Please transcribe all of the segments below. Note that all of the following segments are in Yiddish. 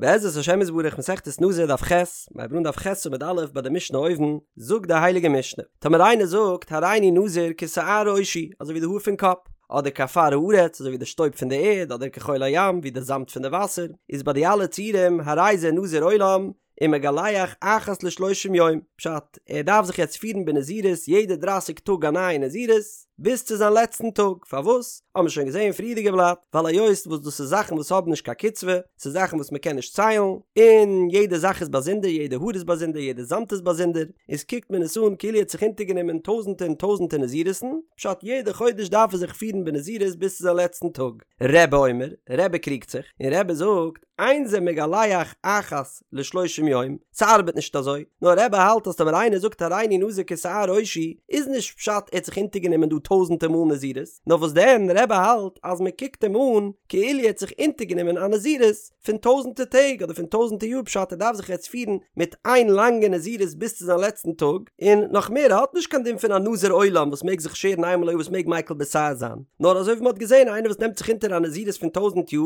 בעזרת השם יתברך מסכת נזיר דף ח', מיר הייבן אן דף ח' עמוד א' ביי די משנה אויבן, זאגט די הייליגע משנה, טאמער איינער זאגט הריני נזיר כשער ראשי, אזוי ווי די האר פון קאפ, אדער כעפר הארץ, אזוי ווי די שטויב פון די ערד, אדער כחול הים, ווי די זאמד פון די וואסער, איז ביי די אלע ציורים הרי זה נזיר עולם, ומגלח אחת לשלושים יום, פשט, ער דארף זיך יעצט פירן בנזירות יעדע דרייסיג טאג א נייע נזירות, ביז צו זיין לעצטן טאג, פארוואס? האבן מיר שוין געזען אין פריערדיגע בלאט, ווייל היות וואס דאס איז זאכן וואס האבן נישט קיין קצבה, ס'איז זאכן וואס מ'קען נישט ציילן, און יעדע זאך איז באזונדער, יעדע האר איז באזונדער, יעדע זאמד איז באזונדער, איז קוקט מען עס אן כאילו ער האט זיך אונטערגענומען טויזנטע און טויזנטע נזירות'ן, פשט יעדע חודש דארף ער זיך פירן בנזירות ביז צו זיין לעצטן טאג. רבי אומר, רבי קריגט זיך, און רבי זאגט, אין זה מגלח אחת לשלושים יום, ס'ארבעט נישט אזוי, נאר רבי האלט אז טאמער איינער זאגט הריני נזיר כשער ראשי, איז נישט פשט ער האט זיך אונטערגענומען דא טויזענטער מאל נזירות, נאר וואס דען רבי האלט אז מען קוקט אים אן כאילו ער האט זיך אונטערגענומען א נזירות פון טויזענטער טעג אדער פון טויזענטער יאר פשט ער דארף זיך יעצט פירן מיט איין לאנגע נזירות ביז צו זיין לעצטן טאג, און נאך מער ער האט נישט קיין דין פון א נזיר עולם וואס מעג זיך שערן איינמאל א יאר וואס מעג מיקל בשער זיין, נאר אזוי ווי מען האט געזען איינער וואס נעמט זיך אונטער א נזירות פון טויזענט יאר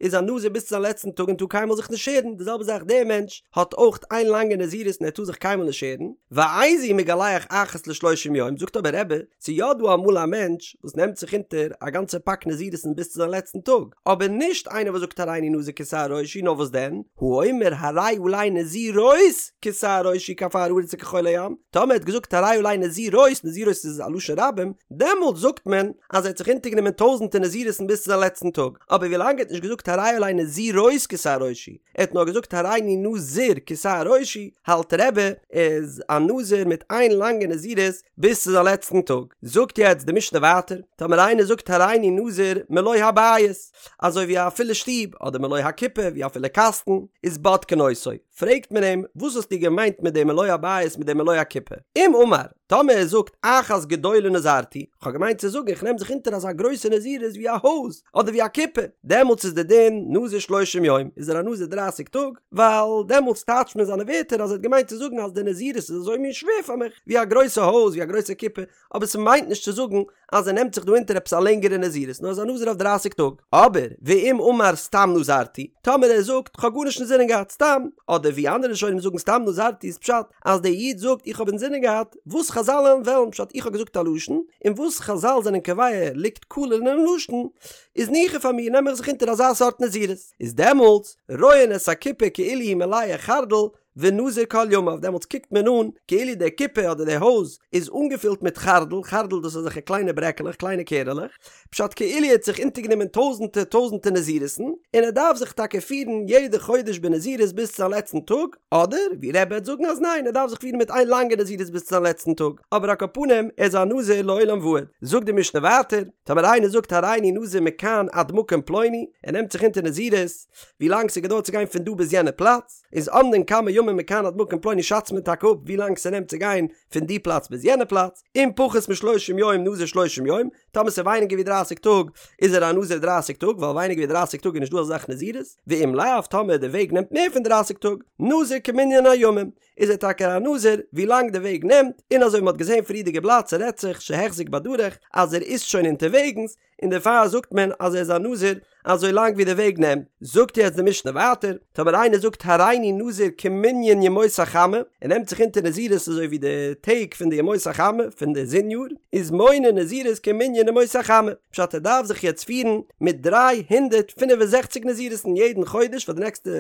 איז א נזיר ביז צו זיין לעצטן טאג און טאר קיינמאל זיך נישט שערן, די זעלבע זאך דער מענטש האט אויך איין לאנגע נזירות און ער טאר זיך קיינמאל נישט שערן, ואיזהו מגלח אחת לשלושים יום, זאגט אבער רבי, ס'איז יא דא אמאל א מענטש וואס נעמט זיך אונטער א גאנצע פאק נזירות'ן ביז צו זיין לעצטן טאג, אבער נישט איינער וואס זאגט הריני נזיר כשער ראשי, נאר וואס דען, האומר הרי עלי נזירות כשער ראשי כעפר הארץ וכחול הים, טאמער ער האט געזאגט הרי עלי נזירות, נזירות איז א לשון רבים, דעמאלט זאגט מען אז ער האט זיך אונטערגענומען טויזענטער נזירות'ן ביז צו זיין לעצטן טאג. אבער ווילאנג ער האט נישט געזאגט הרי עלי נזירות כשער ראשי, ער האט נאר געזאגט הריני נזיר כשער ראשי, האלט רבי איז א נזיר מיט איין לאנגע נזירות ביז צו זיין לעצטן טאג. זאגט יעצט די משנה ווייטער, טאמער איינער זאגט הריני נזיר מלא הבית, אזוי ווי א פולע שטוב, אדער מלא הקופה, ווי א פולע קאסטן, איז בודקין אותו, פרעגט מען אים, וואס האסטו געמיינט מיט די מלא הבית מיט די מלא הקופה? אם אמר, טאמער ער זאגט אחת גדולה נזרתי, כ'האב געמיינט צו זאגן איך נעם זיך אונטער אזא גרויסע נזירות ווי א הויז, אדער ווי א קופה, דעמאלטס איז די דין נזיר שלושים יום, איז ער א נזיר דרייסיג טאג, ווייל דעמאלטס טייטשט מען זיינע ווערטער אז ער האט געמיינט צו זאגן אז די נזירות איז אזוי מין שווער פאר מיך, ווי א גרויסע הויז, ווי א גרויסע קופה, אבער ס'מיינט נישט צו זאגן אז ער נעמט זיך דא אונטער עפעס א לענגערע נזירות, נאר ער איז א נזיר אויף דרייסיג טאג. אבער, ואם אמר סתם נזרתי, טאמער ער זאגט כ'האב גארנישט אינזינען געהאט, סתם, אדער ווי אנדערע ראשונים זאגן סתם נזרתי איז פשט אז דער איד זאגט איך האב אינזינען געהאט וואס חזל וועלן פשט איך האב געזאגט א לשון, און וואס חזל זענען קובע ליגט כלול אינעם לשון, איז ניחא פאר מיר נעם איך זיך אונטער אזא סארט נזירות. איז דעמאלטס, רואין את הקופה כאילו היא מלאה חרדל, ונזיר כל ימיו, דעמאלטס קוקט מען אן כאילו די קופה אדער די הויז איז אנגעפילט מיט חרדל, חרדל דאס איז אזעלכע קליינע ברעקעלעך, קליינע קערעלעך, פשט כאילו ער האט זיך אונטערגענומען טויזענטער טויזענטער נזירות'ן, און ער דארף זיך טאקע פירן יעדע חודש בנזירות ביז צו זיין לעצטן טאג, אדער ווי רבי וועט זאגן אז ניין ער דארף זיך פירן מיט איין לאנגע נזירות ביז צו זיין לעצטן טאג, אבער על כל פנים ער איז א נזיר לעולם ועד. זאגט די משנה ווייטער, טאמער איינער זאגט הריני נזיר מכאן עד מקום פלוני, ער נעמט זיך אונטער נזירות ווי לאנג ס'געדויערט צו גיין פון דא ביז יענע פלאץ, איז אומדין כמה ימים מכאן עד מקום פלוני שאצט מען טאקע אפ ווי לאנג ס'נעמט צו גיין פון די פלאץ ביז יענע פלאץ, אם פחות משלושים יום נזיר שלושים יום, טאמער ס'איז ווייניגער ווי דרייסיג טאג איז ער א נזיר דרייסיג טאג ווייל ווייניגער ווי דרייסיג טאג איז נישט דא אזא זאך נזירות, ואם לאו טאמער די וועג נעמט מער פון דרייסיג טאג, נזיר כמנין הימים, איז ער טאקע א נזיר ווי לאנג די וועג נעמט, און אזוי ווי מ'האט געזען פריערדיגע בלאט ס'רעדט זיך שהחזיק בדרך אז ער איז שוין אונטערוועגנס, און דערפאר זאגט מען אז ער איז א נזיר אזוי לאנג ווי די וועג נעמט, זאגט יעצט די משנה ווייטער, טאמער איינער זאגט הריני נזיר כמנין ימות החמה, ער נעמט זיך אונטער נזירות אזוי ווי די טעג פון די ימות החמה פון די זון יאר, איז מונה נזירות כמנין ימות החמה, פשט ער דארף זיך יעצט פירן מיט 365 נזירות'ן יעדן חודש פאר די נעקסטע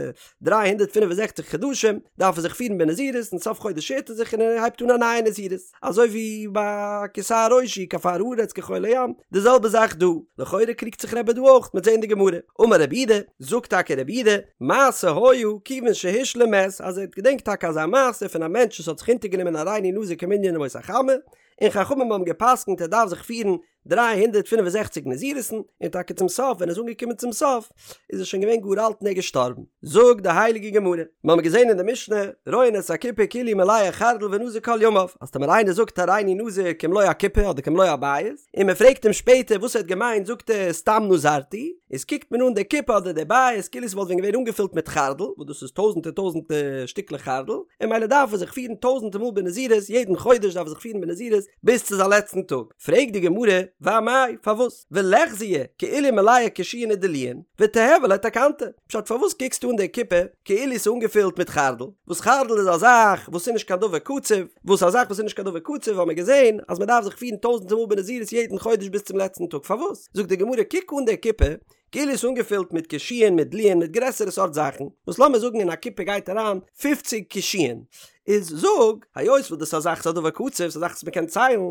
365 חדשים דארף ער זיך פירן בנזירות און סוף חודש שערט ער זיך און ער הייבט אן א נייע נזירות. אזוי ווי ביי כשער ראשי כעפר הארץ כחול הים, די זעלבע זאך דא, לכאורה קריגט זיך רבי דא אויך, מ'עט זען די גמרא, אמר רב יהודה, זאגט טאקע רב יהודה, מעשה היה כיוון שהשלים מת, אז ער האט געדענקט טאקע אזא מעשה פון א מענטש וואס האט זיך אונטערגענומען הריני נזיר כמנין ימות החמה, און חכמים האבן גע'פסק'נט ער דארף זיך פירן 365 נזירות'ן, און טאקע צום סוף ווען ער איז אנגעקומען צום סוף איז ער שוין געווען גאר אלט און ער איז געשטארבן. זאגט די הייליגע גמרא, מיר האבן געזען אין די משנה, רואין את הקופה כאילו היא מלאה חרדל ונזיר כל ימיו, אז טאמער איינער זאגט הריני נזיר כמלוא הקופה אדער כמלוא הבית, און מען פרעגט אים שפעטער וואס ער האט געמיינט זאגט ער סתם נזרתי, איז קוקט מען אן די קופה אדער די בית כאילו עס וואלט ווען געווען אנגעפילט מיט חרדל, וואס דאס איז טויזנטער טויזנטער שטיקלעך חרדל, און ממילא דארף ער זיך פירן טויזנטער מאל בנזירות, יעדן חודש דארף ער זיך פירן בנזירות ביז צו זיין לעצטן טאג. פרעגט די גמרא, ואמאי, פארוואס? וליחזייה כאילו מלאה קישואין ודלועין, ותיהוי ליה תקנתא. פשט פארוואס קוקסטו אן די קופה כאילו ס'איז אנגעפילט מיט חרדל, וואס חרדל איז א זאך וואס איז נישט קיין דבר קצוב, וואס א זאך וואס איז נישט קיין דבר קצוב האבן מיר געזען אז מ'דארף זיך פירן טויזענטער מאל בנזירות יעדן חודש ביז צום לעצטן טאג, פארוואס? זאגט די גמרא קוק אן די קופה כאילו ס'איז אנגעפילט מיט קישואין מיט דלועין מיט גרעסערע סארט זאכן, וואס לאמיר זאגן אין א קופה גייט אריין פופציג קישואין, איז זאג, היות וואס דאס איז א זאך ס'איז א דבר קצוב, ס'איז א זאך וואס מ'קען ציילן,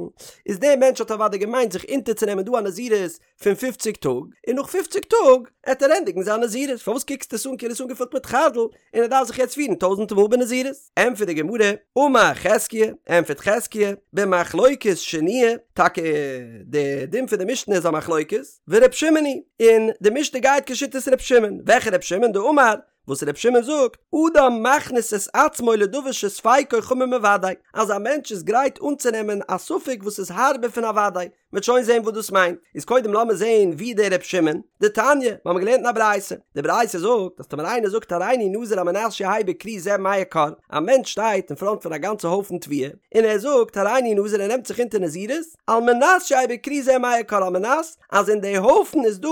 איז דער מענטש האט אוודאי געמיינט זיך אונטערצונעמען דא א נזירות פון פופציג טאג, און נאך פופציג טאג עט ער ענדיגן זיין נזירות, פארוואס קוקסטו עס אן כאילו עס איז אנגעפילט מיט חרדל און ער דארף זיך יעצט פירן טויזענטע מאל בנזירות? ענטפערט די גמרא, אמר חזקיה, ענטפערט חזקיה, במחלוקת שנויה, טאקע די דין פון די משנה איז א מחלוקת, ור' שמעון היא, און די משנה גייט כשיטת ר' שמעון, וועלכע ר' שמעון? דאמר, וואס ר' שמעון זאגט, אדם מכניס את עצמו לדבר שספיקו חמור מוודאי, אז א מענטש איז גרייט אנצונעמען א ספק וואס איז הארבער פון א וודאי, מ'וועט שוין זען וואס דאס מיינט, איז קודם לאמיר זען ווי דער ר' שמעון, דתניא, מיר האבן געלערנט אין א ברייתא, די ברייתא זאגט אז טאמער איינער זאגט הריני נזיר על מנת שיהא בכרי זה מאה כור, א מענטש שטייט אין פראנט פון א גאנצע הויפן תבואה, און ער זאגט הריני נזיר ער נעמט זיך אונטער נזירות, על מנת שיהא בכרי זה מאה כור על מנת אז אין די הויפן איז דא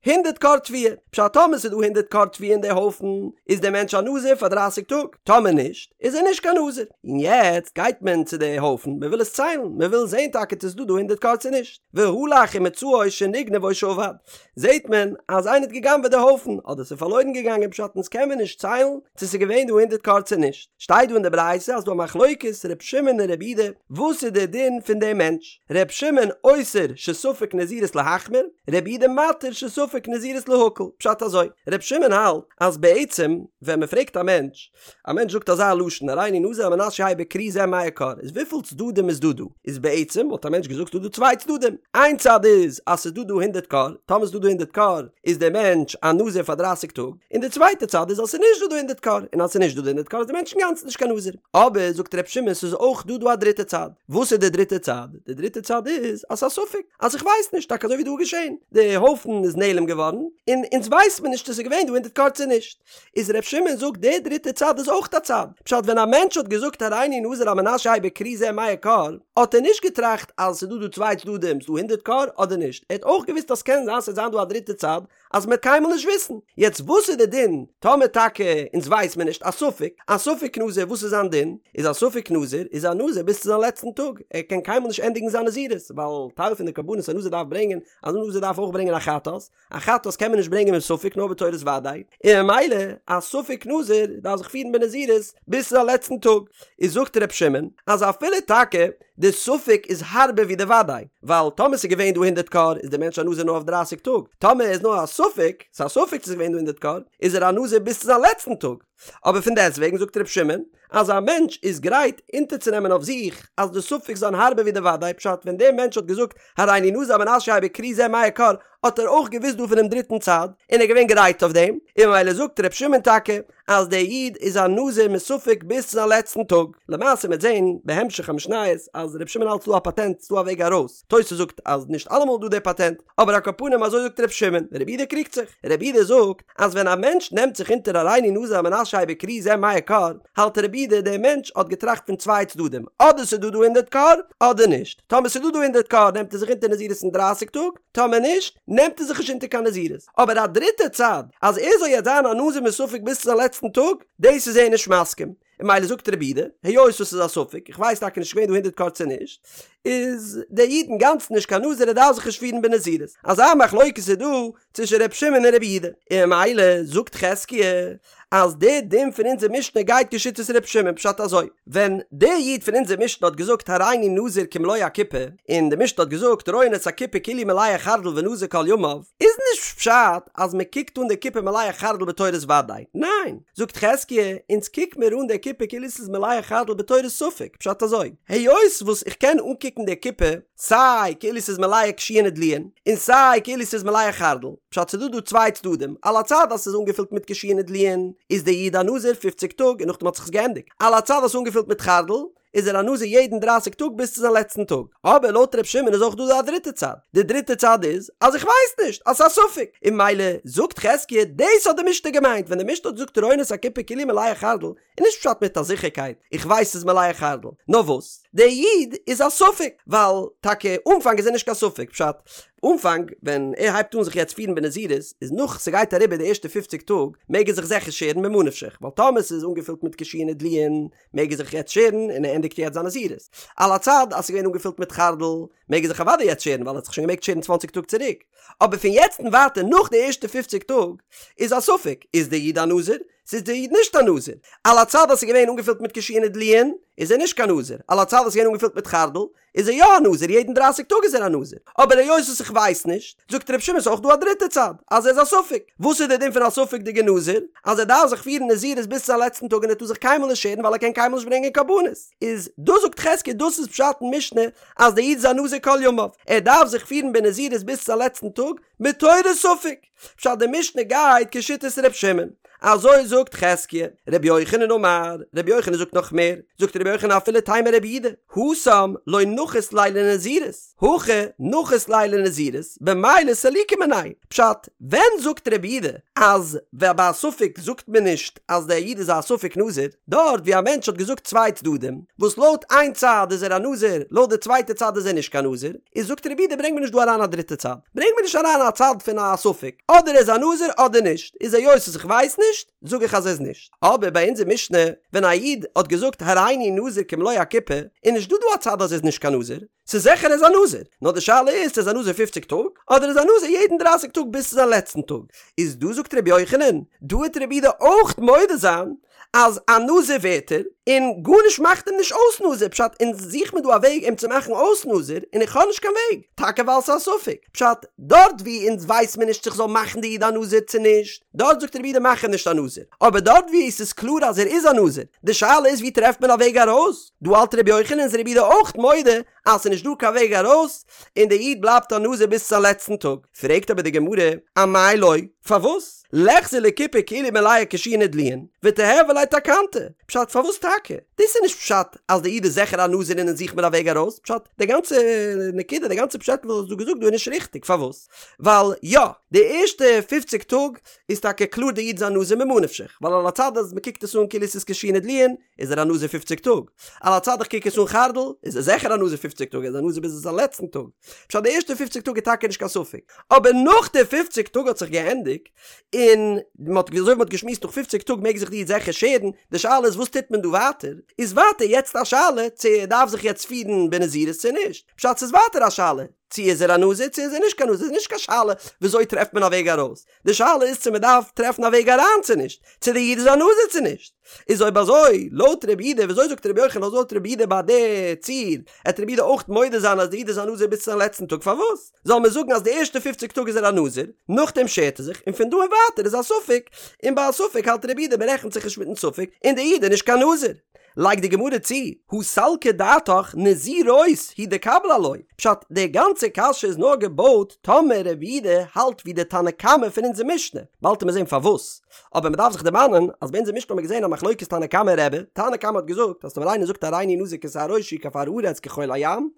הונדערט כור תבואה, פשט טאמער ס'איז דא הונדערט כור תבואה אין די הויפן איז דער מענטש א נזיר פאר דרייסיג טאג, טאמער נישט איז ער נישט קיין נזיר, און יעצט גייט מען צו די הויפן מען וויל עס ציילן מען וויל זען טאקע צו ס'איז דא דא הונדערט כור צו נישט, והלך ומצאו שנגנב או שאבד, זעט מען אז איינער האט גע'גנב'עט די הויפן אדער ס'איז פארלוירן געגאנגען פשט אונז קען מען נישט ציילן צו ס'איז געווען דא הונדערט כור צו נישט, שטייט דא אין די ברייתא אז דא א מחלוקת ר' שמעון און ר' יהודה וואס איז די דין פון דעם מענטש? ר' שמעון אוסר שספק נזירות להחמיר, ר' יהודה מתיר שספק נזירות להקל, פשט אזוי, ר' שמעון האלט אז בעצם ווען מען פרעגט א מענטש, א מענטש זאגט אזא לשון הריני נזיר על מנת שיהא בכרי זה מאה כור, איז וויפיל צדדים איז דא דא? איז בעצם וואלט א מענטש געזאגט ס'דא דא צוויי צדדים, איין צד איז אז ס'איז דא דא הונדערט כור, טאמער ס'איז דא דא הונדערט כור איז דער מענטש א נזיר פאר דרייסיג טאג, און די צווייטע צד איז אז ס'איז נישט דא דא הונדערט כור, און אז ס'איז נישט דא דא הונדערט כור איז דער מענטש אינגאנצן נישט קיין נזיר. אבער זאגט ר' שמעון ס'איז אויך דא דא א דריטע צד. וואס איז די דריטע צד? די דריטע צד איז אז ס'איז א ספק, אז איך ווייס נישט, טאקע אזוי ווי דא איז געשען, די הויפן איז נעלם געווארן, און אונז ווייסט מען נישט צו ס'איז געווען דא הונדערט כור צו נישט. איז ר' שמעון זאגט די דריטע צד איז אויך א צד. פשט ווען א מענטש האט געזאגט הריני נזיר על מנת שיהא בכרי זה מאה כור, האט ער נישט געטראכט אז ס'איז דא דא צוויי צדדים, ס'איז דא הונדערט כור אדער נישט, ער האט אויך געוואוסט אז ס'קען זיין ס'וועט זיין דא א דריטע צד, אז מ'וועט קיינמאל נישט וויסן. יעצט וואס איז די דין טאמער טאקע אונז ווייס מיר נישט, א ספק, א ספק נזיר וואס איז זיין דין? איז א ספק נזיר איז א נזיר ביז צו זיין לעצטן טאג, ער קען קיינמאל נישט ענדיגן זיין נזירות, ווייל טייל פון די קרבנות א נזיר דארף ברענגען, אז א נזיר דארף אויך ברענגען א חטאת, א חטאת קען מען נישט ברענגען מספק נאר בתורת וודאי, און ממילא א ספק נזיר דארף זיך פירן בנזירות ביז צו זיין לעצטן טאג. איז זאגט ר' שמעון אז אפילו טאקע די ספק איז הארבער ווי די וודאי, ווייל טאמער ס'איז געווען דא הונדערט כור איז די מענטש א נזיר נאר אויף דרייסיג טאג, טאמער איז נאר א ספק, ס'איז א ספק צו ס'איז געווען דא הונדערט כור, איז ער א נזיר ביז צו זיין לעצטן טאג. אבער פון דעסטוועגן זאגט ר' שמעון אז א מענטש איז גרייט אונטערצונעמען אויף זיך אז די ספק זיין הארבער ווי די וודאי, פשט ווען דער מענטש האט געזאגט הריני נזיר על מנת שיהא בכרי זה מאה כור האט ער אויך געוואוסט דא פונעם דריטן צד און ער איז געווען גרייט אויף דעם, און ממילא זאגט ר' שמעון טאקע אז דער איד איז א נזיר מספק ביז צו זיין לעצטן טאג. למעשה מ'וועט זען בהמשך המשניות אז ר' שמעון האלט ס'דא א פאטענט, ס'דא א וועג ארויס. תוס' זאגט אז נישט אלעמאל איז דא דער פאטענט, אבער על כל פנים אזוי זאגט ר' שמעון, רבי יהודה קריגט זיך. רבי יהודה זאגט אז ווען א מענטש נעמט זיך אונטער הריני נזיר על מנת שיהא בכרי זה מאה כור, האלט רבי יהודה דער מענטש האט געטראכט פון צוויי צדדים, אדער ס'איז דא דא הונדערט כור, אדער נישט. טאמער ס'איז דא דא הונדערט כור נעמט ער זיך אונטער נזירות אין דרייסיג טאג, טאמער נישט, נעמט ער זיך נישט אונטער קיין נזירות. אבער א דריטע צד, אז ער זאל יעצט זיין א נזיר מספק ביז צו זיין לעצטן טאג, דאס איז ער נישט מסכים. און ממילא זאגט רבי יהודה, היות עס איז א ספק, איך ווייס טאקע נישט געווען דא הונדערט כור צו נישט, איז דער איד אינגאנצן נישט קיין נזיר ער דארף זיך נישט פירן בנזירות. אזא מחלוקת איז דא צווישן ר' שמעון און רבי יהודה. און ממילא זאגט חזקיה אז דער דין פון אונזער משנה גייט כשיטת ר' שמעון, פשט אזוי, ווען דער איד פון אונזער משנה האט געזאגט הריני נזיר כמלוא הקופה, און די משנה האט געזאגט רואין את הקופה כאילו מלאה חרדל ונזיר כל ימיו, איז נישט פשט אז מען קוקט אן די קופה מלאה חרדל בתורת ודאי, ניין, זאגט חזקיה, אונז קוק מיר אן די קופה כאילו ס'איז מלאה חרדל בתורת ספק, פשט אזוי, היות וואס איך קען אנקוקן די קופה סיי כאילו ס'איז מלאה קישואין ודלועין, און סיי כאילו ס'איז מלאה חרדל, פשט ס'דא דא צוויי צדדים, על הצד אז ס'איז אנגעפילט מיט קישואין ודלועין, איז דער איד א נזיר פופציג טאג און נאכדעם האט זיך עס געענדיגט, על הצד אז ס'איז אנגעפילט מיט חרדל, איז ער א נזיר יעדן דרייסיג טאג ביז צו זיין לעצטן טאג. אבער לויט ר' שמעון איז אויך דא א דריטע צד, די דריטע צד איז אז איך ווייס נישט, אז ס'איז א ספק, און ממילא זאגט חזקיה דאס האט די משנה געמיינט ווען די משנה האט געזאגט רואין את הקופה כאילו מלאה חרדל, איז נישט פשט מיט א זיכערקייט איך ווייס ס'איז מלאה חרדל, נאר וואס דער איד איז א ספק, ווייל טאקע אנפאנג איז ער נישט קיין ספק, פשט אנפאנג ווען ער הייבט אן זיך יעצט פירן בנזירות איז נאך ס'גייט אריבער די ערשטע פופציג טאג מעג ער זיך זיכער שערן ממה נפשך, ווייל טאמער ס'איז אנגעפילט מיט קישואין ודלועין מעג ער זיך יעצט שערן און ער ענדיגט יעצט זיין נזירות. על הצד אז ס'איז געווען אנגעפילט מיט חרדל מעג ער זיך אוודאי יעצט שערן ווייל ער האט זיך שוין געמעגט שערן צוואנציג טאג צוריק. אבער פון יעצט און ווייטער נאך די ערשטע פופציג טאג איז א ספק איז דער איד א נזיר צו איז דער איד נישט א נזיר. על הצד אז ס'איז געווען אנגעפילט מיט קישואין ודלועין איז ער נישט קיין נזיר. על הצד אז ס'איז געווען אנגעפילט מיט חרדל איז ער יא א נזיר, יעדן דרייסיג טאג איז ער א נזיר, אבער היות וואס איך ווייס נישט, זאגט ר' שמעון ס'איז אויך דא א דריטע צד, אז ער איז א ספק, וואס איז דער דין פון א ספק'דיגע נזיר, אז ער דארף זיך פירן נזירות ביז צו זיין לעצטן טאג און ער טאר זיך קיינמאל נישט שערן ווייל ער קען קיינמאל נישט ברענגען קרבנות, איז דאס זאגט חזקיה דאס איז פשט אין משנה אז דער איד איז א נזיר כל ימיו, ער דארף זיך פירן בנזירות ביז צו זיין לעצטן טאג, מתורת ספק. פשט די משנה גייט כשיטת ר' שמעון, אזוי זאגט חזקיה, ר' יוחנן אמר, ר' יוחנן זאגט נאך מער, זאגט ר' יוחנן אפילו תימא רבי יהודה, התם לא נחית ליה לנזירות, הכא נחית ליה לנזירות, במילא סליקו מיניה, פשט, ווען זאגט רבי יהודה אז ביי א ספק זאגט מען נישט אז דער איד איז א ספק נזיר, דארט ווי א מענטש האט געזאגט צוויי צדדים, וואס לויט איין צד איז ער א נזיר, לויט די צווייטע צד איז ער נישט קיין נזיר, איז זאגט רבי יהודה ברענג מיר נישט דא אריין א דריטע צד, ברענג מיר נישט אריין א צד פון א ספק, אדער ער איז א נזיר אדער נישט, איז היות וואס איך ווייס נישט, זאג איך אז ער איז נישט. אבער ביי אונזער משנה, ווען א איד האט געזאגט הריני נזיר כמלוא הקופה, איז נישט דא דא א צד אז ער איז נישט קיין נזיר, ס'איז זיכער ער איז א נזיר, נאר די שאלה איז צו ער איז א נזיר פופציג טאג, אדער איז א נזיר יעדן דרייסיג טאג ביז צו זיין לעצטן טאג. איז דא זאגט רבי יוחנן, דא וועט רבי יהודה אויך מודה זיין אז א נזיר ווערט ער, און גארנישט מאכט אים נישט אויס נזיר, פשט אונז זוך מיר דא א וועג אים צו מאכן אויס נזיר, און איך האב נישט קיין וועג, טאקע ווייל ס'איז א ספק, פשט דארט ווי אונז ווייס מיר נישט צו כ'זאל מאכן די איד א נזיר צו נישט, דארט זאגט רבי יהודה מאך אים נישט א נזיר, אבער דארט ווי עס איז קלאר אז ער איז א נזיר, די שאלה איז ווי טרעפט מען א וועג ארויס, דא האלט רבי יוחנן איז רבי יהודה אויך מודה אז ס'איז נישט דא קיין וועג ארויס, און די איד בלייבט א נזיר ביז צו זיין לעצטן טאג, פרעגט אבער די גמרא, אמאי לא, פארוואס? ליחזי לקופה כאילו מלאה קישואין ודלועין, ותיהוי ליה תקנתא, פשט פארוואס טאקע? דאס איז נישט פשט אז די איד איז זיכער א נזיר און אונז זוך מיר א וועג ארויס, פשט די גאנצע נקודה די גאנצע פשעטל וואס האסט דא געזאגט דא איז נישט ריכטיג, פארוואס? ווייל יא, די ערשטע פופציג טאג איז טאקע קלאר די איד איז א נזיר ממה נפשך, ווייל על הצד אז מ'קוקט עס אן כאילו עס איז קישואין ודלועין, איז ער א נזיר פופציג טאג, על הצד איך קוק עס אן חרדל, איז ער זיכער א נזיר פופציג טאג, ער איז א נזיר ביז זיין לעצטן טאג. פשט די ערשטע פופציג טאג איז טאקע נישט קיין ספק, אבער נאך די פופציג טאג האט זיך געענדיגט, און מ'האט אזוי ווי מ'האט געשמועסט נאך פופציג טאג מעג זיך די איד זיכער שערן, די שאלה איז וואס טוט מען דא ווייטער, איז ווייטער יעצט א שאלה צו ער דארף זיך יעצט פירן בנזירות צו נישט, פשט ס'איז ווייטער א שאלה צו איז ער א נזיר צו איז ער נישט קיין נזיר, ס'איז נישט קיין שאלה וויאזוי טרעפט מען א וועג ארויס, די שאלה איז צו מען דארף טרעפן א וועג אריין צו נישט, צו די איד איז א נזיר צו נישט. איז אויב אזוי, לויט רבי יהודה, וויאזוי זאגט רבי יוחנן אז לויט רבי יהודה ביי די ציור, עט רבי יהודה אויך מודה זיין אז די איד איז א נזיר ביז צו זיין לעצטן טאג, פארוואס זאל מען זאגן אז די ערשטע פופציג טאג איז ער א נזיר, נאכדעם שערט ער זיך, און פון דא און ווייטער איז א ספק, און ביי א ספק האלט רבי יהודה מען רעכנט זיך נישט מיטן ספק, און די איד איז נישט קיין נזיר. לייגט די גמרא צו, הא סלקא דעתך נזירות הוא דקביל עילויה, פשט, די גאנצע קשיא איז נאר געבויט טאמער רבי יהודה האלט ווי די תנא קמא פון אונזער משנה, באלד וועט מען זען פארוואס, אבער מען דארף זיך דערמאנען אז ביי אונזער משנה האט מען געזען א מחלוקת תנא קמא און רבי, תנא קמא האט געזאגט אז טאמער איינער זאגט הריני נזיר כשער ראשי כעפר הארץ כחול הים,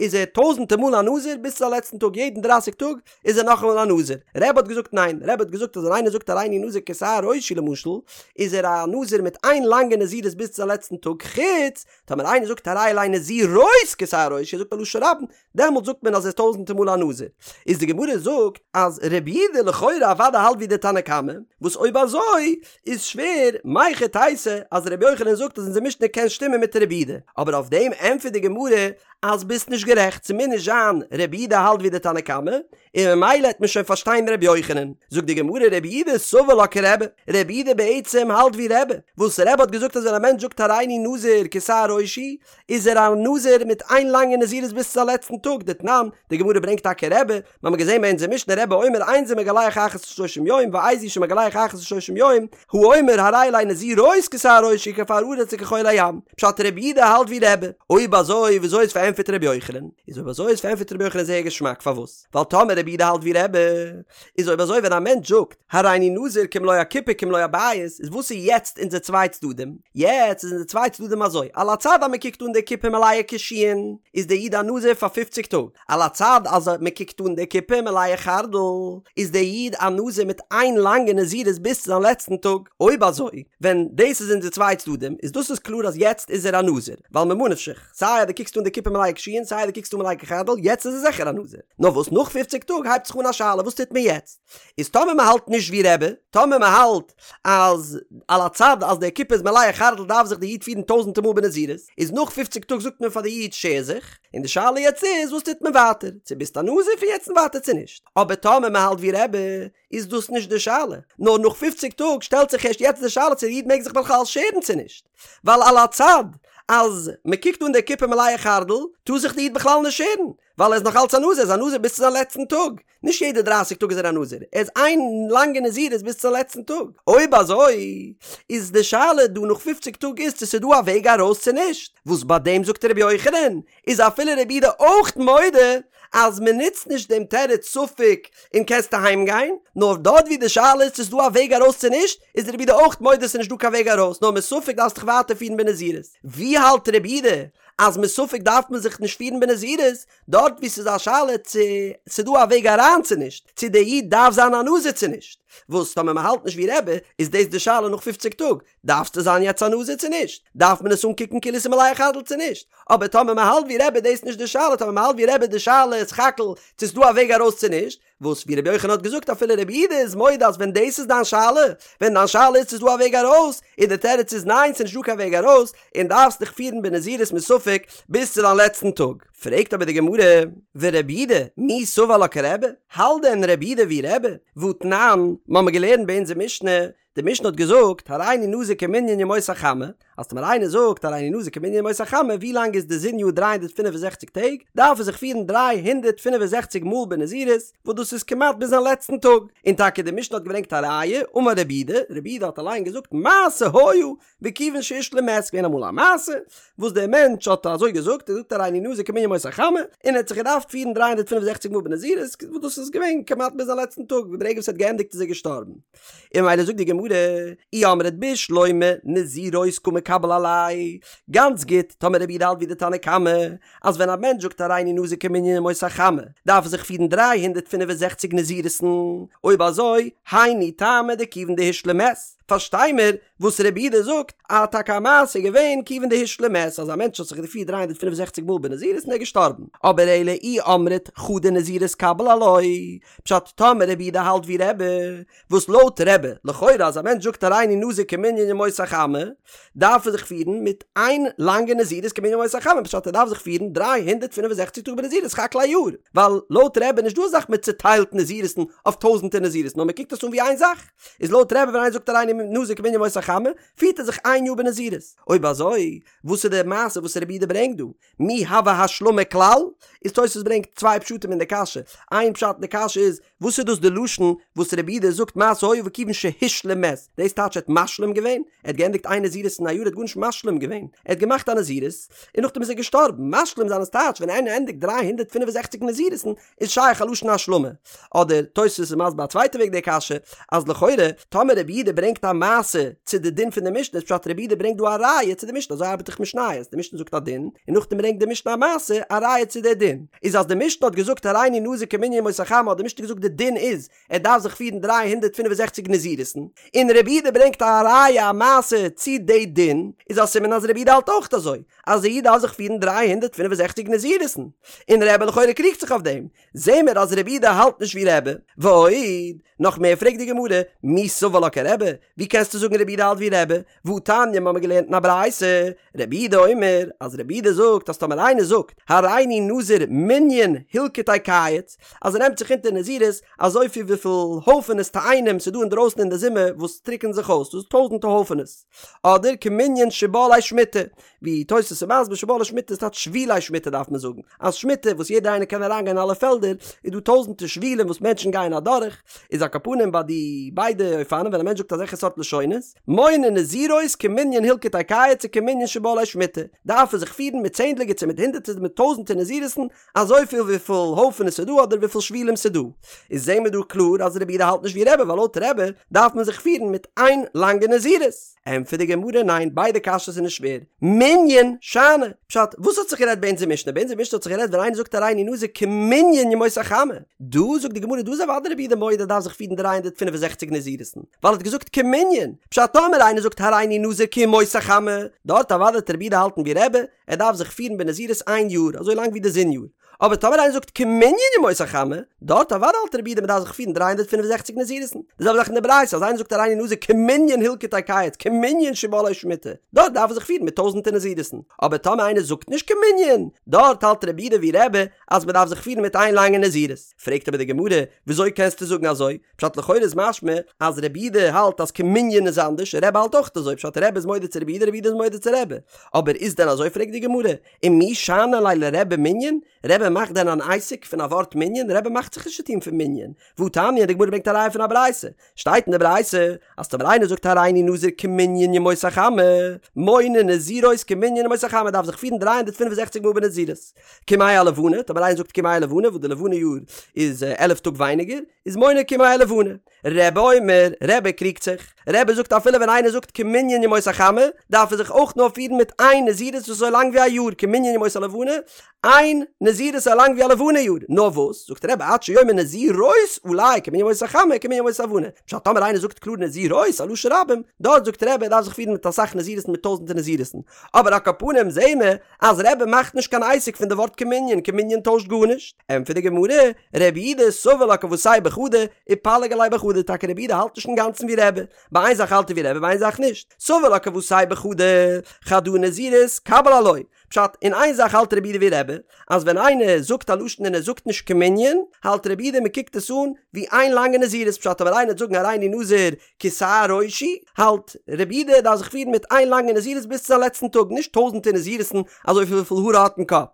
איז ער טויזענטער מאל א נזיר ביז צו זיין לעצטן טאג יעדן דרייסיג טאג איז ער נאכאמאל א נזיר. רבי האט געזאגט ניין, רבי האט געזאגט אז ווען איינער זאגט הריני נזיר כשער ראשי למשל, איז ער א נזיר מיט איין לאנגע נזירות ביז צו זיין לעצטן טאג, חוץ טאמער איינער זאגט הרי עלי נזירות כשער ראשי, ער זאגט א לשון רבים, דעמאלט זאגט מען אז ער איז טויזענטער מאל א נזיר. איז די גמרא זאגט אז רבי יהודה לכאורה אוודאי האלט ווי די תנא קמא, וואס אויב אזוי איז שווער, מהיכי תיתי אז רבי יוחנן זאגט אז אונזער משנה קען שטימען מיט רבי יהודה, אבער אויף דעם ענטפערט די גמרא אז ביסט נישט גערעכט, ס'מוז נישט זיין רבי יהודה האלט ווי די תנא קמא, און ממילא העט מען שוין פארשטיין רבי יוחנן. זאגט די גמרא רבי יהודה סבר לה כרבי, רבי יהודה בעצם האלט ווי רבי, וואס רבי האט געזאגט אז ווען א מענטש זאגט הריני נזיר כשער ראשי, איז ער א נזיר מיט איין לאנגע נזירות ביז צו זיין לעצטן טאג, דתנן, די גמרא ברענגט טאקע רבי, מיר האבן געזען ביי אונזער משנה רבי אומר אין זה מגלח אחת לשלושים יום ואיזהו שמגלח אחת לשלושים יום, האומר הרי עלי נזירות כשער ראשי כעפר הארץ וכחול הים, פשט רבי יהודה האלט ווי רבי, אויב אזוי וויאזוי איז פארענטפערט רבי יוחנן? איז אויב אזוי איז פארענטפערט רבי יוחנן זייער געשמאק פארוואס? ווייל טאמער רבי יהודה האלט ווי רבי, איז אויב אזוי ווען א מענטש זאגט הריני נזיר כמלוא הקופה כמלוא הבית איז וואס איז יעצט אונזער צוויי צדדים? יעצט איז אונזער צוויי. צוויי צדדים אזוי, על הצד אז מען קוקט אן די קופה מלאה קישואין, איז דער איד א נזיר פאר פופציג טאג, על הצד אז מען קוקט אן די קופה מלאה חרדל, איז דער איד א נזיר מיט איין לאנגע נזירות ביז צו זיין לעצטן טאג. אויב אזוי, ווען דאס איז אונזער צוויי צדדים, איז דאס איז קלאר אז יעצט איז ער א נזיר, ווייל ממה נפשך, סיי אז דו קוקסט אן די קופה מלאה קישואין סיי אז דו קוקסט אן מלאה חרדל, יעצט איז ער זיכער א נזיר. נאר וואס נאך פופציג טאג הייבט זיך אן א שאלה וואס טוט מען יעצט? איז טאמער מען האלט נישט ווי רבי, טאמער מען האלט אז על הצד אז די קופה איז מלאה חרדל דארף זיך די איד פירן טויזענטער מאל בנזירות, איז נאך פופציג טאג זאגט מען פאר די איד שער זיך, און די שאלה יעצט איז וואס טוט מען ווייטער, צו ביסט א נזיר פון יעצט און ווייטער צו נישט, אבער טאמער מען האלט ווי רבי איז דאס נישט די שאלה, נאר נאך פופציג טאג שטעלט זיך ערשט יעצט די שאלה צו די איד מעג זיך בכלל שערן צו נישט, ווייל על הצד אז מען קוקט אן די קופה מלאה חרדל טאר זיך די איד בכלל נישט שערן, ווייל ער איז נאך אלץ א נזיר, ער איז א נזיר ביז צו זיין לעצטן טאג, נישט יעדע דרייסיג טאג איז ער א נזיר, ער איז איין לאנגע נזירות ביז צום לעצטן טאג, אויב אזוי איז די שאלה דא נאך פופציג טאג איז צו ס'איז דא א וועג ארויס צו נישט, וואס ביי דעם זאגט רבי יוחנן איז אפילו רבי יהודה אויך מודה אז מ'נוצט נישט דעם תירוץ ספק און קענסט אהיים גיין, נאר דארט ווי די שאלה איז צו ס'איז דא א וועג ארויס צו נישט, איז רבי יהודה אויך מודה ס'איז נישט דא קיין וועג ארויס נאר מספק דארפסט דיך ווייטער פירן בנזירות, ווי האלט רבי יהודה אז מספק דארף מען זיך נישט פירן בנזירות, דארט וואו ס'איז א שאלה צו ס'איז דא א וועג אריין צו נישט, צו דער איד דארף זיין א נזיר צו נישט, וואס טאמער מ'האלט נישט ווי רבי, איז דאס די שאלה נאך פופציג טאג, דארפסטו זיין יעצט א נזיר צו נישט? דארף מען עס אנקוקן כאילו ס'איז מלאה חרדל צו נישט? אבער טאמער מ'האלט ווי רבי איז דאס נישט די שאלה, טאמער מ'האלט ווי רבי איז די שאלה סך הכל צו ס'איז דא א וועג ארויס צו נישט, וואס ווי רבי יוחנן האט געזאגט אפילו רבי יהודה איז מודה אז ווען דאס איז דיין שאלה, ווען דיין שאלה איז צו ס'איז דא א וועג ארויס, און די תירוץ איז ניין ס'איז נישט דא קיין וועג ארויס, און דארפסט דיך פירן בנזירות מספק ביז צו דיין לעצטן טאג. פרעגט אבער די גמרא, ורבי יהודה מי סבר לה כרבי? האלט דען רבי יהודה ווי רבי? והתנן, מ'האמיר געלערנט ביי אונזער משנה, די משנה האט געזאגט, הריני נזיר כמנין ימות החמה, אז טאמער איינער זאגט הריני נזיר כמנין ימות החמה, ווי לאנג איז די זון יאר 365 טעג, דארף ער זיך פירן 365 מאל בנזירות, וואס דאס איז כמעט ביז זיין לעצטן טאג. און טאקע די משנה האט געברענגט א ראיה, אמר רבי יהודה, רבי יהודה האט אליין געזאגט מעשה היה וכיוון שהשלים מת, געווען אמאל א מעשה וואס דער מענטש האט אזוי געזאגט, ער זאגט הריני נזיר כמנין ימות החמה, און ער האט זיך געדארפט פירן 365 מאל בנזירות, וואס דאס איז געווען כמעט ביז זיין לעצטן טאג, ברגע וואס ער האט געענדיגט איז ער געשטארבן. און ממילא זאגט די גמרא, אי אמרת בשלמא נזירות קא מקבל עליה, גאנץ גוט, טאמער רבי יהודה האלט ווי די תנא קמא, אז ווען א מענטש זאגט הריני נזיר כמנין ימות החמה, דארף ער זיך פירן 365 נזירות'ן, אויב אזוי, היינו טעמא דכיוון דהשלים מת, פארשטיי מיר וואס רבי יהודה זאגט, אז טאקע א מעשה איז געווען כיוון דהשלים מת, אז א מענטש האט זיך געפירט 365 מאל בנזירות און ער איז געשטארבן, אבער אלא אי אמרת חדא נזירות קביל עילויה, פשט טאמער רבי יהודה האלט ווי רבי, וואס לויט רבי, לכאורה אז א מענטש זאגט הריני נזיר כמנין ימות החמה, דארף ער זיך פירן מיט איין לאנגע נזירות כמנין ימות החמה, פשט ער דארף זיך פירן 365 טאג בנזירות סך הכל א יאר, ווייל לויט רבי איז נישט דא א זאך מען צוטיילט נזירות'ן אויף טויזענטער נזירות'ן נאר מען קוקט עס אן ווי איין זאך, איז לויט רבי ווען איינער זאגט הריני נזיר כמנין ימות החמה, פירט ער זיך איין יאר בנזירות. אויב אזוי, וואס איז די מעשה וואס רבי יהודה ברענגט דא? מי הוה השלמה כלל? איז תוספות ברענגט צוויי פשטים אין די קשיא, איין פשט אין די קשיא איז, וואס איז דאס די לשון וואס רבי יהודה זאגט מעשה היה וכיוון שהשלים מת, דאס טייטש ער האט משלים געווען? ער האט געענדיגט איין נזירות אין א יאר ער האט גארנישט משלים געווען, ער האט געמאכט א נזירות און נאכדעם איז ער געשטארבן, משלים זיין איז טייטש ווען איינער ענדיגט 365 נזירות'ן איז שייך א לשון השלמה. אדער תוספות איז מסביר א צווייטע וועג די קשיא, אז לכאורה טאמער רבי יהודה ברענגט א מעשה צו די דין פון די משנה איז פשט רבי יהודה ברענגט דא א ראיה צו די משנה אזוי ארבעט דאך משניות די משנה זאגט א דין און נאכדעם ברענגט די משנה א מעשה א ראיה צו די דין איז אז די משנה האט געזאגט הריני נזיר כמנין ימות החמה האט די משנה געזאגט די דין איז ער דארף זיך פירן 365 נזירות'ן און רבי יהודה ברענגט א ראיה א מעשה צו די דין איז א סימן אז רבי יהודה האלט אויך אזוי אז א איד דארף זיך פירן 365 נזירות'ן און רבי לכאורה קריגט זיך אויף דעם זעהן מיר אז רבי יהודה האלט נישט ווי רבי, ועוד, נאך מער פרעגט די גמרא, מי סבר לה כרבי, ווי קענסטו זאגן רבי יהודה האלט ווי רבי, והתניא מ'האמיר געלערנט אין א ברייתא, רבי יהודה אומר, אז רבי יהודה זאגט אז טאמער איינער זאגט, הריני נזיר מנין הלקטי קיץ, אז ער נעמט זיך אונטער נזירות אזויפיל וויפיל הויפענעס תאנים ס'דא אינדרויסן אין די זומער וואס טריקענען זיך אויס, דאס איז טויזענטע הויפענעס, אדער כמנין שבלי שמיטה, ווי תוס' איז מסביר שבלי שמיטה איז טייטש שבילי שמיטה דארף מען זאגן אז שמיטה וואס יעדער איינער קען אריין גיין אין אלע פעלדער איז דא טויזענטער שבילים וואס מענטשן גייען אדורך איז על כל פנים ביי די ביידע אופנים ווען א מענטש זאגט אזעלכע. סארט לשונות, מונה נזירות כמנין הילקוטי קיץ וכמנין שבא עלי שמיטה, דארף ער זיך פירן מיט צענדליגער צו מיט הונדערטער מיט טויזענטער נזירות'ן, אזויפיל וויפיל הויפענעס ס'איז דא אדער וויפיל שבילים ס'איז דא. איז זעהן מיר דא קלאר אז רבי יהודה האלט נישט ווי רבי ווייל לויט רבי דארף מען זיך פירן מיט איין לאנגע נזירות. ענטפערט די גמרא ניין ביידע קשיות זענען שווער. מנין שאני. פשט, וואס האט זיך גערעדט ביי אונזער משנה? ביי אונזער משנה האט זיך גערעדט ווען איינער זאגט הריני נזיר כמנין ימות החמה. דא זאגט די גמרא דא איז אוודאי רבי יהודה מודה דארף זיך פירן 365 נזירות'ן ווייל ער האט געזאגט כמנין. פשט, טאמער איינער זאגט הריני נזיר כימות החמה, דארט אוודאי וועט רבי יהודה האלטן ווי רבי, ער דארף זיך פירן בנזירות איין יאר, אזוי לאנג ווי די זון יאר. אבער טאמער איינער זאגט כמנין ימות החמה, דארט אוודאי האלט רבי יהודה מ'דארף זיך פירן 365 נזירות'ן. די זעלבע זאך אין די ברייתא, אז איינער זאגט הריני נזיר כמנין הילקוטי קיץ, כמנין שבא עלי שמיטה, דארט דארף ער זיך פירן מיט טויזענטער נזירות'ן. אבער טאמער איינער זאגט נישט כמנין, דארט האלט רבי יהודה ווי רבי אז מ'דארף זיך פירן מיט איין לאנגע נזירות. פרעגט אבער די גמרא, וויאזוי קענסטו זאגן אזוי? פשט לכאורה איז משמע אז רבי יהודה האלט אז כמנין איז אנדערש, רבי האלט אויך אזוי, פשט רבי איז מודה צו רבי יהודה, רבי יהודה איז מודה צו רבי. אבער איז דען אזוי פרעגט די גמרא, ומי שאני ליה לרבי מנין, רבי מאכט דען אן עסק פון א ווארט מנין, רבי מאכט זיך נישט צוטון פון מנין, והתניא, די גמרא ברענגט א ראיה פון א ברייתא, שטייט אין די ברייתא אז טאמער איינער זאגט הריני נזיר כמנין ימות החמה, מונה נזירות כמנין ימות החמה דארף זיך פירן 365 מאל בנזירות. כימי הלבנה, טאמער איינער זאגט כימי הלבנה וואס די לבנה יאר איז עלף טאג ווייניגער, איז מונה כימי הלבנה. רבי אומר, רבי קריגט זיך, רבי זאגט אפילו ווען איינער זאגט כמנין ימות החמה, דארף ער זיך אויך נאר פירן מיט איין נזירות וואס איז אזוי לאנג ווי א יאר, כמנין ימות הלבנה, איין נזירות אזוי לאנג ווי א לבנה יאר, נאר וואס, זאגט רבי עד שיאמר נזירות עלי כמנין ימות החמה כמנין ימות הלבנה, פשט טאמער איינער זאגט קלאר נזירות א לשון רבים, דארט זאגט רבי ער דארף זיך פירן מיט אסאך נזירות'ן מיט טויזענטער נזירות'ן, אבער על כל פנים זעהן מיר אז רבי מאכט נישט קיין עסק פון די ווארט כמנין, כמנין טוישט גארנישט. ענטפערט די גמרא, רבי יהודה סבר לה כוותיה בחדא, ופליג עליה בחדא, טאקע רבי יהודה האלט נישט אינגאנצן ווי רבי, ביי איין זאך האלט ער ווי רבי ביי איין זאך נישט, סבר לה כוותיה בחדא, חדא נזירות קביל עילויה, פשט, אין איין זאך האלט רבי יהודה ווי רבי, אז ווען איינער זאגט א לשון און ער זאגט נישט כמנין, האלט רבי יהודה מען קוקט עס אן ווי איין לאנגע נזירות, פשט אויב איינער וועט זאגן הריני נזיר כשער ראשי, האלט רבי יהודה דארף זיך פירן מיט איין לאנגע נזירות ביז צו זיין לעצטן טאג, נישט טויזענטער נזירות'ן אזויפיל וויפיל האר ער האט אין קאפ.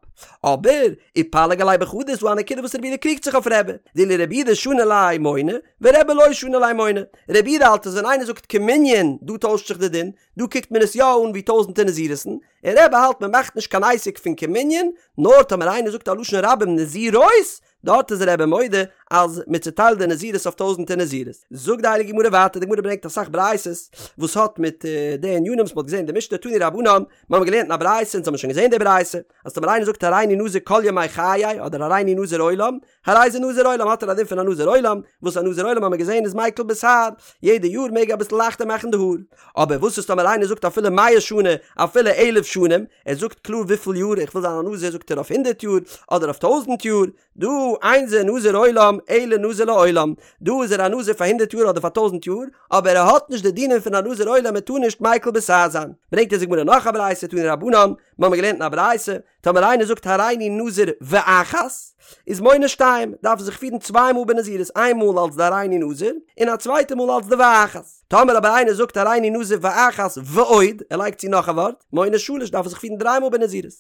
אבער, ופליג עליה בחדא איז דא א נקודה וואס רבי יהודה קריגט זיך אויף רבי, דאילו רבי יהודה שני ליה מונה, ורבי לא שני ליה מונה. רבי יהודה האלט אז ווען איינער זאגט כמנין, דא טוישט זיך די דין, דא קוקט מען עס יא אן ווי טויזענטער נזירות'ן, און רבי האלט מען מאכט נישט קיין עסק פון כמנין, נאר טאמער איינער זאגט א לשון רבים נזירות, דארט איז רבי מודה אז מען צוטיילט די נזירות אויף טויזענטער נזירות. זאגט די הייליגע גמרא ווייטער, די גמרא ברענגט אסאך ברייתות וואס האט מיט די ענינים וואס מען האט געזען אין די משנה תנו רבנן, מיר האבן געלערנט אין א ברייתא אונז האבן שוין געזען די ברייתא, אז טאמער איינער זאגט הריני נזיר כל ימי חיי אדער הריני נזיר עולם, הרי זה נזיר עולם האט ער א דין פון א נזיר עולם, וואס א נזיר עולם האבן מיר געזען איז מיקל בתער, יעדע יאר מעג ער אביסל לייכטער מאכן די האר. אבער וואס איז טאמער איינער זאגט אפילו מאה שנה אפילו אלף שנים, ער זאגט קלאר וויפיל יאר איך וויל זיין א נזיר זאגט ער אויף הונדערט יאר אדער אויף טויזנט יאר, דא אין זה נזיר עולם אלא נזיר לעולם, דא איז ער א נזיר פאר הונדערט יאר אדער פאר טויזנט יאר, אבער ער האט נישט די דינים פון א נזיר עולם ער טאר נישט מיקל בתער זיין. ברענגט אונז די גמרא נאך א ברייתא תנו רבנן, מיר האבן געלערנט אין א ברייתא, טאמער איינער זאגט הריני נזיר ואחת, איז מונה שתיים, דארף ער זיך פירן צוויי מאל בנזירות, איין מאל אלס די הריני נזיר, און א צווייטע מאל אלס די ואחת. טאמער אבער איינער זאגט הריני נזיר ואחת ועוד, ער לייגט צו נאך א ווארט, מונה שלש, דארף ער זיך פירן דריי מאל בנזירות.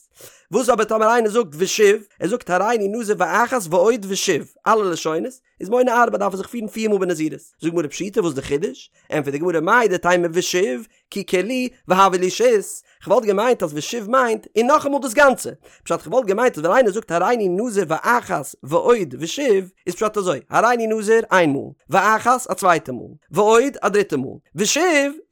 וואס אבער טאמער איינער זאגט ושוב, ער זאגט הריני נזיר ואחת ועוד ושוב, אלע לשונות, איז מונה ארבע דארף ער זיך פירן פיר מאל בנזירות. זאגט די גמרא פשיטא וואס איז די חידוש? ענטפערט די גמרא מהו דתימא ושוב, כי כולהו והויא להו שית, כ'וואלט געמיינט אז ושוב מיינט און נאכאמאל דאס גאנצע. פשט כ'וואלט געמיינט אז ווען איינער זאגט הריני נזיר ואחת ועוד ושוב איז פשט אזוי, הריני נזיר איין מאל, ואחת א צווייטע מאל, ועוד א דריטע מאל, ושוב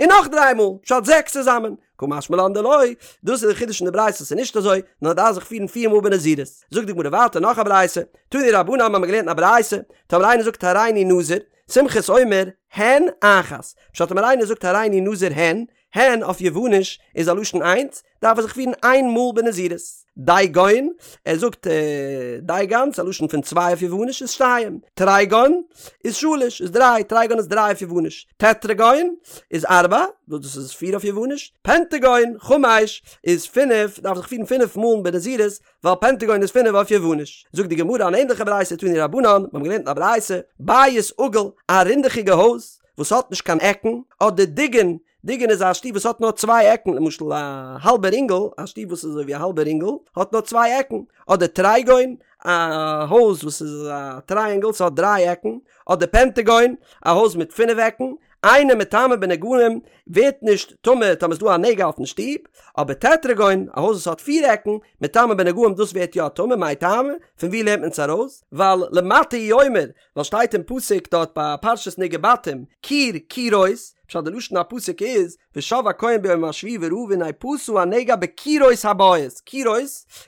און נאך דריי מאל, פשט זעקס צוזאמען. קא משמע לן דלא, דאס איז די חידוש אין די ברייתא ס'איז נישט אזוי, נאר דארף זיך פירן פיר מאל בנזירות. זאגט די גמרא ווייטער נאך א ברייתא, תנו רבנן האבן מיר געלערנט אין א ברייתא, טאמער איינער זאגט הריני נזיר, סומכוס אומר, הן אחת. פשט טאמער איינער זאגט הריני נזיר הן, הן אויף יווניש איז א לשון איינס, דארף ער זיך פירן איין מאל בנזירות. דיגון, ער זאגט דיגון, ס'איז א לשון פון צוויי אויף יווניש איז שתיים. טריגון איז שלש, איז דריי, טריגון איז דריי אויף יווניש. טטרגון איז ארבע, וואס דאס איז פיר אויף יווניש. פנטגון, חמש, איז פינף, דארף זיך פירן פינף מאל בנזירות, ווייל פענטעגאון איז פינף אויף יווניש. זאגט די גמרא אן ענדליכע ברייתא תנו רבנן, מיר האבן געלערנט אין א ברייתא, בית עגול, א רינדעכיגע הויז וואס האט נישט קיין עקן, אדער דיגון, דיגון איז א שטוב וואס האט נאר צוויי עקן, למשל א האלבע רינגל, א שטוב וואס איז אזוי ווי א האלבע רינגל, האט נאר צוויי עקן, אדער טרייגון, א הויז וואס איז א טרייענגל, ס'האט דריי עקן, אדער פענטעגאון, א הויז מיט פינף עקן, אינו מטמא בנגעים ווערט נישט טמא טאמער ס'איז דא א נגע אויפן שטוב, אבער טטראגון, א הויז וואס האט פיר עקן, מטמא בנגעים דאס ווערט יא טמא, מאי טעמא? פון ווי לערנט מען עס ארויס? ווייל למטה הוא אומר, ווייל שטייט אין פסוק דארט ביי פרשת נגעי בתים, קיר קירות, פשט די לשון הפסוק איז, ושב הכהן ביום השביעי וראה והנה פשה הנגע בקירות הבית, קירות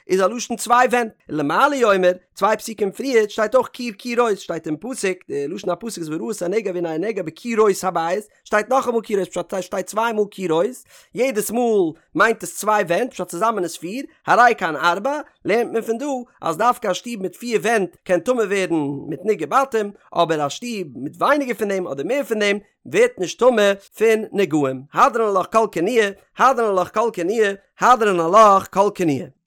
איז א לשון צוויי ווענט, למעלה הוא אומר, צוויי פסוקים פריערט שטייט אויך קיר קירות, שטייט אין פסוק, די לשון הפסוק איז וראה את הנגע והנה הנגע בקירות הבית, שטייט נאכאמאל קירות פשט שטייט צוויי מאל קירות, יעדעס מאל מיינט עס צוויי ווענט פשט צוזאמען איז פיר, הרי כאן ארבע, לערנט מען פון דא אז דווקא א שטוב מיט פיר ווענט קען טמא ווערן מיט נגעי בתים, אבער א שטוב מיט ווייניגער פון דעם אדער מער פון דעם ווערט נישט טמא פון נגעים. הדרן עלך כל כינויי, הדרן עלך כל כינויי, הדרן עלך כל כינויי.